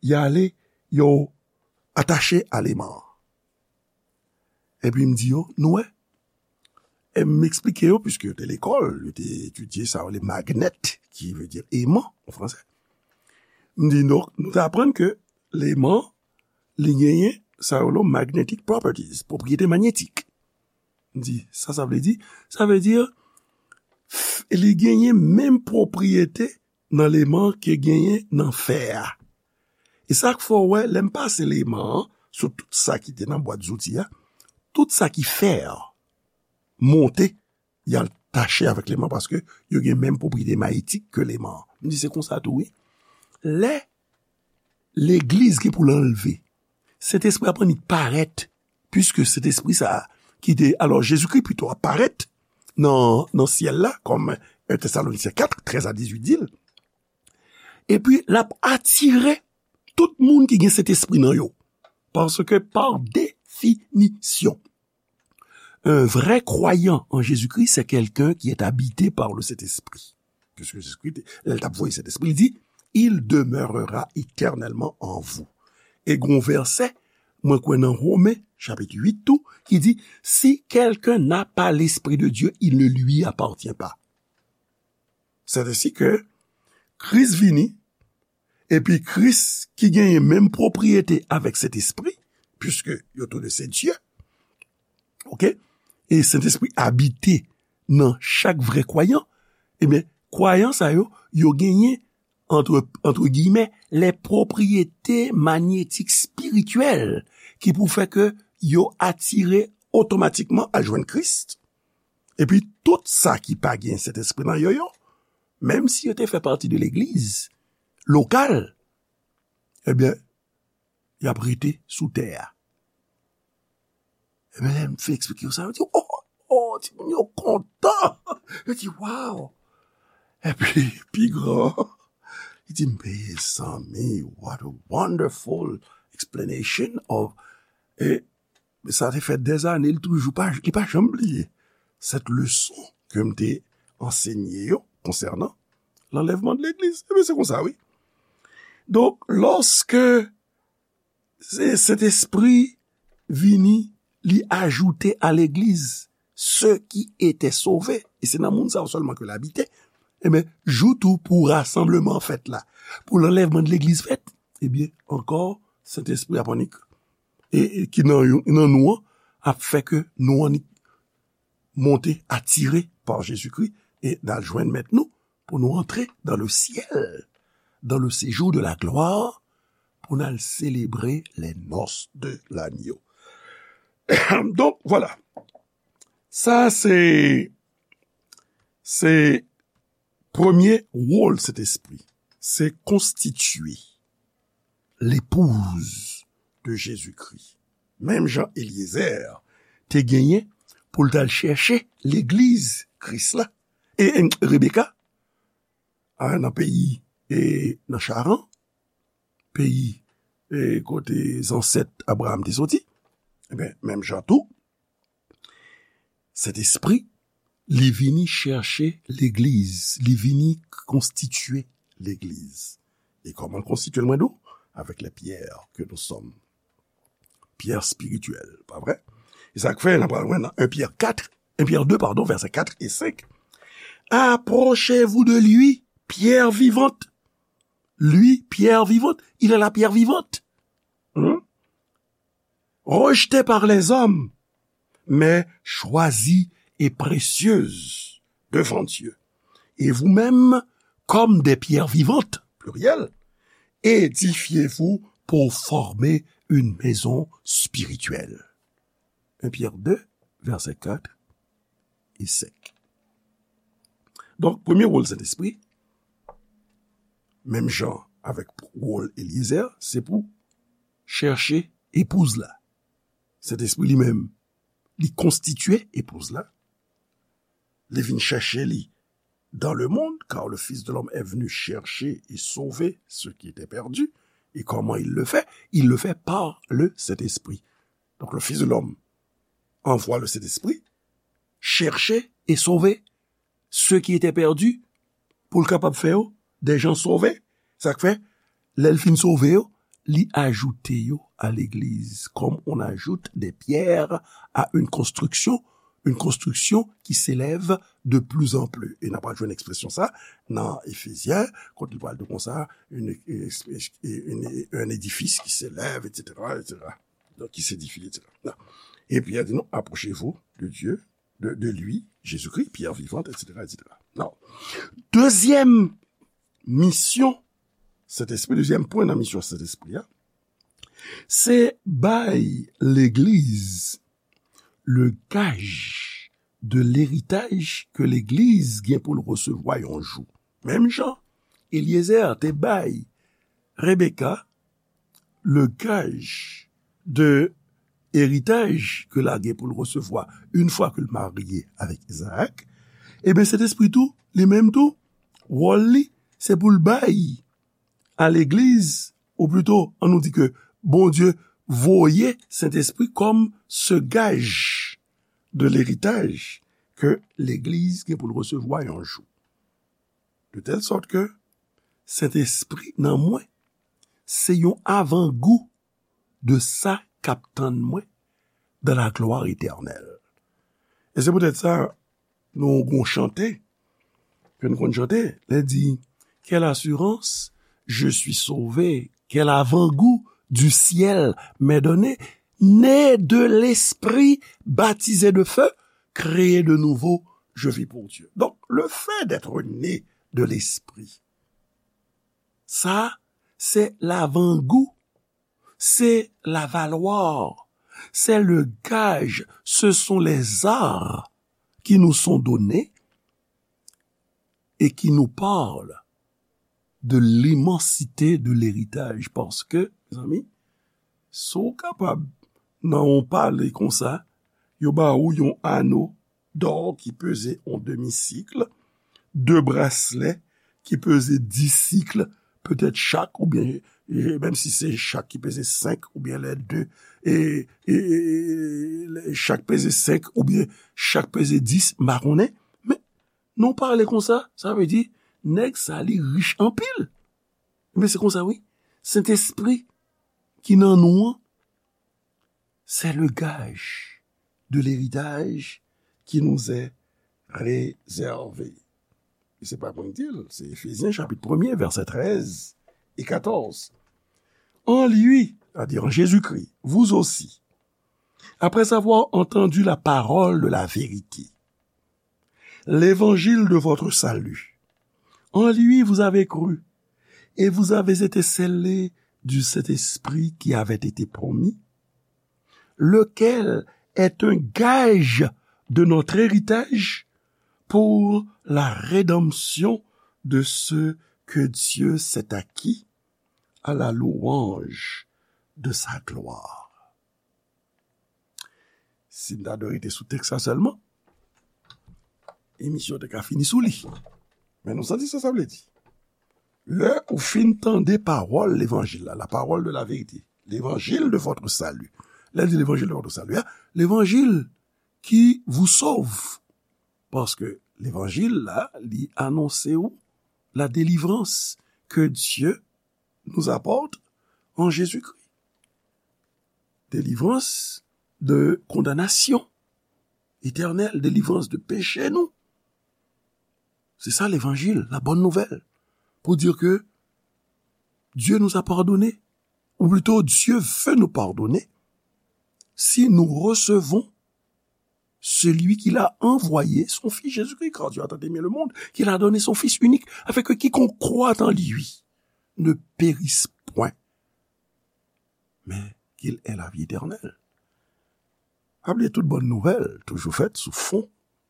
y ale, yo atache a leman an. Epi m di yo, "Nou wè?" E m eksplike yo, piske yo te lekòl, yo te etidye sa yo, le magnet, ki vle di eman an fransè. M di, "Donk, nou te aprann ke leman, li genyen sa yo le magnetic properties, pwopriyete manyetik." M di, "Sa sa vle di?" Sa vle di, f-, li genyen menm pwopriyete nan leman ke genyen nan fè a. E sa k fè w wè, lè m pase leman an sou tout sa ki te nan bwat zouti a, tout sa ki fè a monte, y al tache avèk leman paske yo gen menm pwopriyete manyetik ke leman an. M di se konsa tou, wi. Lè legliz gen pou l anlve, Sentespri ap annik parèt, piske Sentespri sa a, ki te, alò, Jezikri pito ap parèt nan, nan syèl la, kòm un Thessaloniciens quatre, treize à dix-huit di l. Epi, l ap atire tout moun ki gen Sentespri nan yo. Paske, par définition, un vrai croyant en Jésus-Christ, c'est quelqu'un qui est habité par le Saint-Esprit. Puisque Jésus-Christ, lè l t ap voye Sentespri, li di, "Il demeurera éternellement en vous." E gon vèsè, mwen kwè nan Women, chapit uit tou, ki di, "Si quelqu'un n'a pas l'Esprit de Dieu, il ne lui appartient pas." C'est ainsi que Kris vini, epi Kris ki genyen menm pwopriyete avèk Sentespri, puisque yo tou de se Dye, oke? E Sentespri abite nan chak vrè kwayan, ebyen, kwayan sa yo, yo genyen, entre, entre guillemets, les propriétés magnétiques spirituelles ki pou fè ke yo atire otomatikman al jwenn Kris. Epi tout sa ki pa gen Sentespri nan yo, yo, menm si yo te fè pati de legliz lokal, ebyen, y ap rete sou tè a. Ebyen, lè m fin eksplike yo sa, yo di, "Oh, oh, timoun yo kontan." Yo di, "Wow." Epi, pi gran, li di, "Mezanmi, what a wonderful explanation of," e sa te fè dèzane, li toujou pa, li pa janm bliye cette leçon ke m te ansenye yo konsènan l'enlèvement de l'église. Ebyen, se konsa, wi. Donk, lòske se Sentespri vini, li ajoute a legliz ceux qui étaient sauvés, e se nan moun sa yo sèlman ke l abite, ebyen, jou tou pou rasanbleman an fèt la, pou l'enlèvement de l'église fèt, ebyen, ankò, Sentespri ap annik, e, e ki nan yo, nan nou an, ap fè ke nou annik monte atire pa Jezikri e n al jwenn Mèt nou pou nou antre dans le ciel, dans le séjour de la gloire, pou n al selebre les noces de l'agneau. Donk, vwala. Sa se, se premye wòl Sentespri. Se konstitye l'épouse de Jésus-Christ. Menm jan Eliezer te genyen pou l t al chèche legliz Kris la. E, e Rebeka, a, nan peyi, e nan Charan, peyi, e kote zansèt Abraram te soti, ebyen, menm jan tou, Sentespri, li vini chèche legliz, li vini konstitye legliz. E kòman l konstitye l, mwen di w? Avec les pierres que nous sommes. Pierres spirituelles, pa vre? E sa k fè, n ap pral wè nan en Pyè kat, en Pyè de, pardon, vèsè kat e senk. Approchez-vous de lui, pierre vivante. Lui, pierre vivante. Il est la pierre vivante. Hmm? Rejetée par les hommes, mais choisie et précieuse devant Dieu. Et vous-même, comme des pierres vivantes, pluriel, édifiez-vous pour former une maison spirituelle. En Pyè de, vèsè kat e senk. Donk, premye wòl Sentespri, menm jan avèk wòl Eliezer, se pou chèche epouz la. Sentespri li menm, li konstitye epouz la. Li vin chèche li dans le monde, car le Fils de l'homme est venu chercher et sauver ce qui était perdu. Et comment il le fait? Il le fait par le Saint-Esprit. Donc le Fils de l'homme envoie le Saint-Esprit chercher et sauver ceux qui étaient perdus, pou l kapab fè yo des gens sauvés. Sa k fè, lè l fin sove yo, li ajoute yo à l'église, comme on ajoute des pierres à une construction, une construction qui s'élève de plus en plus. E n ap jwenn ekspresyon sa nan Efezyen, kote li pral di konsa, une, une, une, un édifice qui s'élève, et cetera, et cetera. Donc, qui s'édifie, et cetera. Epi, il dit, non, approchez-vous de Dieu, de, de lui, Jésus-Christ, pierre vivante, et cetera, et cetera. Non. Dezyèm misyon Sentespri, dezyèm pwen nan misyon Sentespri a, se bay legliz le gaj de leritaj ke legliz gen pou l resevwa yon jou. Menm jan Eliezer te bay Rebeka le gaj de eritaj ke l a gen pou l resevwa une fois ke l marye avèk Izaak, ebyen, Sentespri tou, li menm tou, wòl li, se pou l bay a legliz, ou plito, an nou di ke Bondye voye Sentespri kòm se gaj de leritaj ke legliz gen pou l resevwa yon jou. De tèl sòt ke Sentespri nan mwen, se yon avangou de sa k ap tann mwen dans la gloire éternelle. E se poutèt sa, nou gon chante, ke nou konn chante, lè di, quelle assurance, je suis sauvé, quel avant-goût du ciel m'est donné, né de l'esprit, baptisé de feu, créé de nouveau, je vis pour Dieu. Donc, le fait d'être né de l'esprit, sa, se lavangou, se lavalwa, se le gaj, ce sont les arts qui nous sont donnés et qui nous parlent de l'immensité de l'héritage. Paske, mezanmi, si w kapab, nan yon pale konsa, yo ba ou yon ano dò ki peze yon demi sik, de braslè ki peze dis sik, petèt chak, oubyen, e, menm si se chak ki peze senk, oubyen lè de, e, e, e, e, chak peze senk, oubyen chak peze dis, m pa konnen. Men, nou pale konsa, sa vle di, nèg sa li rich anpil. Men se konsa, wi. Sentespri ki nan nou an, c'est le gage de l'héritage qui nous est réservé. E se pa mwen ki di l, se Efezyen chapit premye, vèsè trèz e katòz. En lui, c'est-à-dire en Jésus-Christ, vous aussi, après avoir entendu la parole de la vérité, l'évangile de votre salut. En lui vous avez cru, et vous avez été scellés du Saint-Esprit qui avait été promis, lequel est un gage de notre héritage pour la rédemption de ceux que Dieu s'est acquis à la louange de sa gloire. Si n ta dwe rete sou tèks la sèlman, emisyon te ka fini sou li. Men nou santi sa sa vle di. Lè ou fin tande pawòl levanjil la, la parole de la vérité, l'évangile de votre salut. Lè l di l'évangile de votre salut, a, l'évangile qui vous sauve. Paske levanjil la, li anonse ou la délivrance que Dieu nous apporte en Jésus-Christ. Délivrance de condamnation éternelle, délivrance de péché nou. Se sa levanjil, la bonne nouvelle. Pour dire que Dieu nous a pardonné, ou plutôt Dieu veut nous pardonner si nous recevons celui qu'il a envoyé, son Fils Jésus-Christ, car Dieu a tant aimé le monde, qu'il a donné son Fils unique, afin que quiconque croit en lui ne périsse point, mais qu'il ait la vie éternelle. Pa bliye tout bòn nouvèl toujou fèt sou fon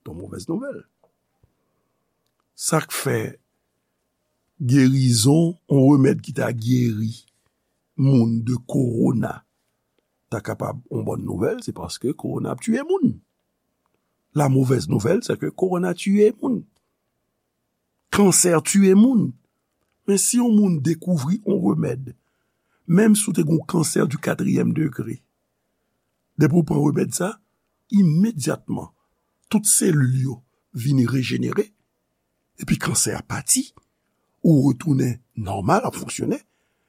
de mauvaise nouvelle. Sa k fè gerizon, yon remèd ki ta geri moun de kowona, ta kapab yon bòn nouvèl, se paske kowona ap tiye moun. La mauvaise nouvelle, c'est que kowona tiye moun. Kansè tiye moun. Men si yon moun dekouvri yon remèd, menm si w te gen yon kansè di katriyèm degre, depi w pran remèd sa, imedyatman, tout selil yo vini rejenere, epi kansè a pati, ou retounen nòmal, ap fonksyone,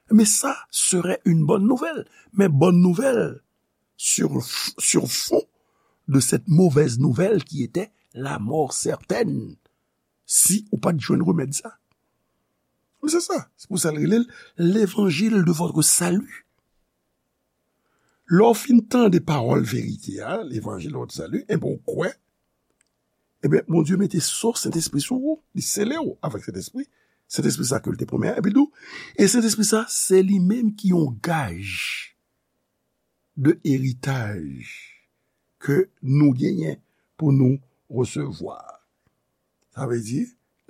mais ça serait une bonne nouvelle. Mais bonne nouvelle sur, sur fond de cette mauvaise nouvelle qui était la mort certaine si ou pa t jwenn remèd sa. Men se sa, se pou sa l rele l l'évangile de votre salut. Lè w fin tande pawòl verite a, l'évangile de votre salut, enben w kwè, enben Bondye mete so Sentespri sou ou, li sele w avèk Sentespri, Sentespri sa ke l te pwomèt a, epi l di w, e Sentespri sa, se li menm ki yon gaj de eritaj ke nou genyen pou nou resevwa. Sa vle di,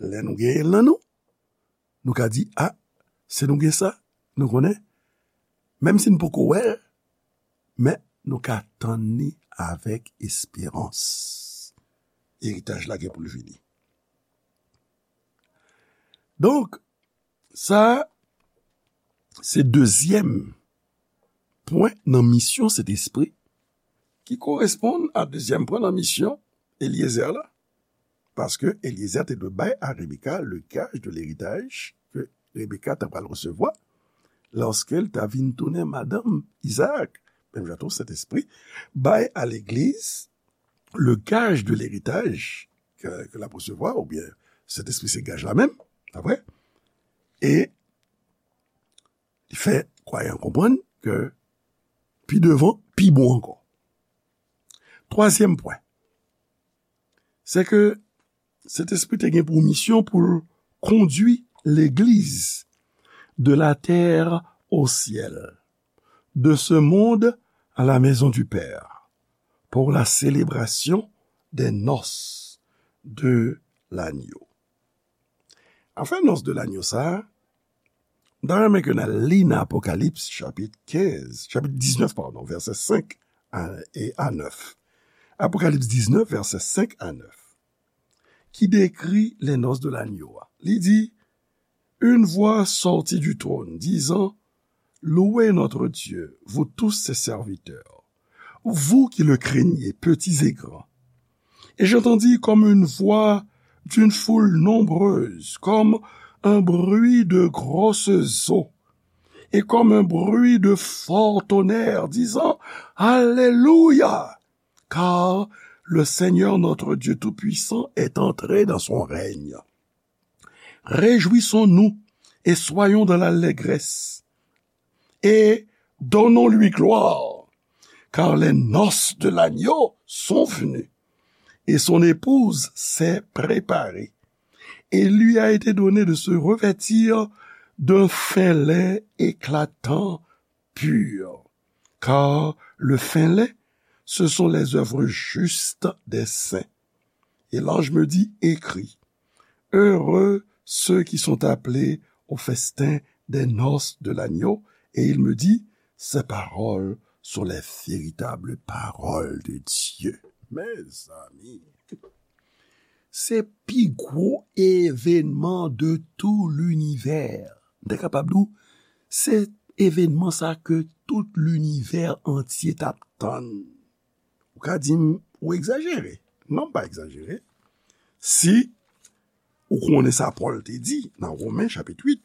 lè nou genyen l nan nou, nou ka di, a, si nou gen sa, nou konnen, menm si n poko wè l, men nou ka tann li avèk esperans. Eritaj la gen pou l vini. Donk, sa, se dezyèm pwen nan misyon Sentespri, ki koresponn a dezyèm pwen nan misyon Eliezer la. Paske Eliezer te dwe bay a Rebeka le gaj de leritaj ke Rebeka ta pral resevwa lòske l ta vin tounen madanm Izaak. Menm jan tou, Sentespri bay a legliz le gaj de leritaj ke, ke l ap resevwa, oubyen Sentespri se gaj la menm, pa vre? E li fè kwayan konprann ke pi devan, pi bon ankò. Twazyèm pwen, se ke Sentespri te gen pou misyon pou l kondui legliz de la terre au ciel, de ce monde à la maison du Père, pour la célébration des noces de l'agneau. Afè nòs de lagno sa a, m ta renmen ke n al li nan Apokalips chapit kenz, chapit diznèf, padon, vèsè senk a, e a nèf. Apokalips diznèf, vèsè senk a nèf, ki dekri les noces de l'agneau a. Li di, une voix sortit du trône, disant, Louez notre Dieu, vous tous ses serviteurs, vous qui le craignez, petits et grands. Et j'entendis comme une voix d'une foule nombreuse, comme un bruit de grosses eaux, et comme un bruit de fort tonnerre, disant, Alléluia, car le Seigneur notre Dieu Tout-Puissant est entré dans son règne. Réjouissons-nous et soyons dans l'allégresse, et donnons-lui gloire, car les noces de l'agneau sont venues, et son épouse s'est préparée. Et il lui a été donné de se revêtir d'un fin lin éclatant, pur, car le fin lin, ce sont les œuvres justes des saints. Et l'ange me dit, écris, heureux ceux qui sont appelés au festin des noces de l'agneau. Et il me dit, ces paroles sont les véritables paroles de Dieu. Mezanmi, se pi gwo evènman de tout linivè. M te kapab di w, se evènman sa ke tout linivè antye t ap tann. Ou ka di m, ou egzajere. Non, m pa egzajere. Si ou konnen sa Pòl te di nan Women chapit uit,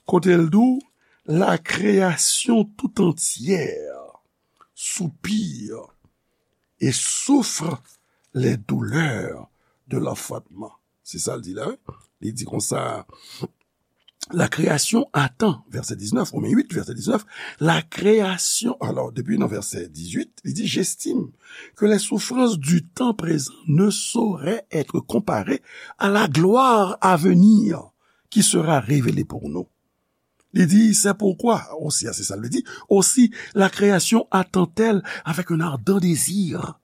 kote l di w, la création tout entière soupire et souffre les douleurs de l'enfantement. Se sa l di la, wi. Li di konsa, la création attend, verset dix-neuf, Romains huit, verset dix-neuf, la création, alors, depuis nan verset dix-huit, li di, j'estime que les souffrances du temps présent ne sauraient être comparées à la gloire à venir qui sera révélée pour nous. Li di, c'est pourquoi, aussi, se sa l di, aussi, la création attend-elle avec un ardent désir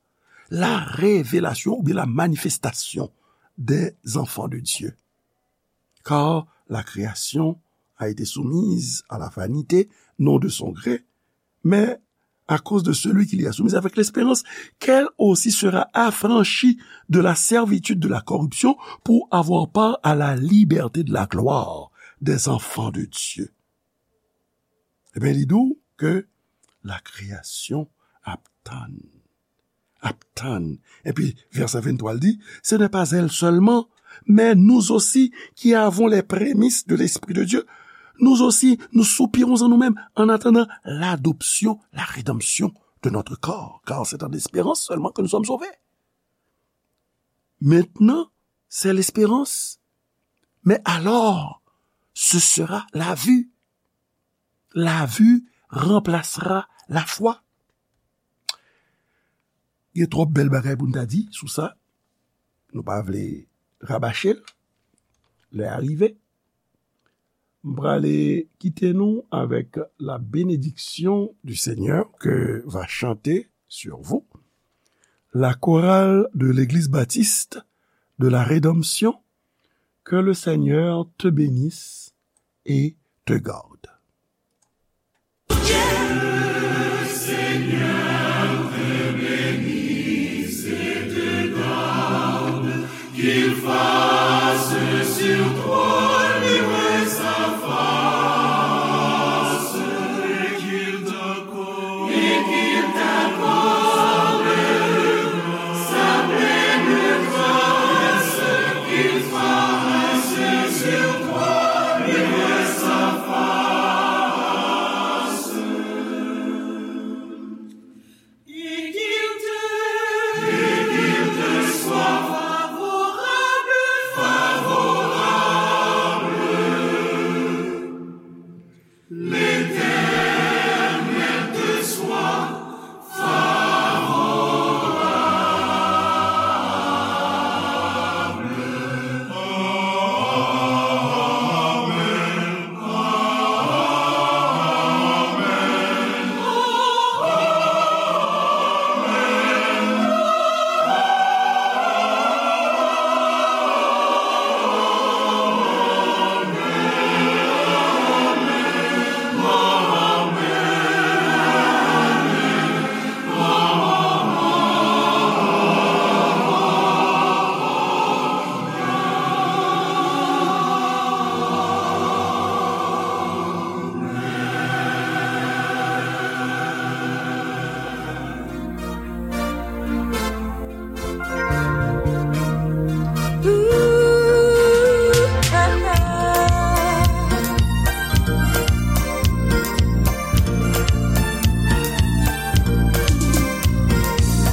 la révélation ou bien la manifestation des enfants de Dieu. Car la création a été soumise à la vanité, non de son gré, mais à cause de celui qui l'y a soumise, avec l'espérance qu'elle aussi sera affranchie de la servitude de la corruption pour avoir part à la liberté de la gloire des enfants de Dieu. Ebyen, li di w ke la création ap tann. Ap tann. Epi, vèsè venntwa, l di, ce n'est pas elle seulement, mais nous aussi qui avons les prémices de l'Esprit de Dieu, nous aussi, nous soupirons en nous-mêmes en attendant l'adoption, la rédemption de notre corps, car c'est en espérant seulement que nous sommes sauvés. Maintenant, c'est l'espérance. Mais alors, ce sera la vue. La vue remplacera la foi. Gen twòp bèl bagay pou n ta di sou sa. Nou pa vle rabache l. Lè a rive. M prale kite nou avec la bénédiction du Seigneur que va chanter sur vous la chorale de l'Église baptiste de la Rédemption. Que le Seigneur te bénisse et te garde. Qu'il fasse sur toi luire sa face, et qu'il t'accorde, et qu'il t'accorde sa pleine grâce, qu'il fasse sur toi luire sa face. Et qu'il te, et qu'il te soit favorable, favorable. L'Éternel te soit favorable.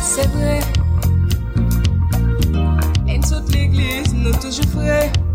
Se vre, lè n sot legliz, nou toujou fre.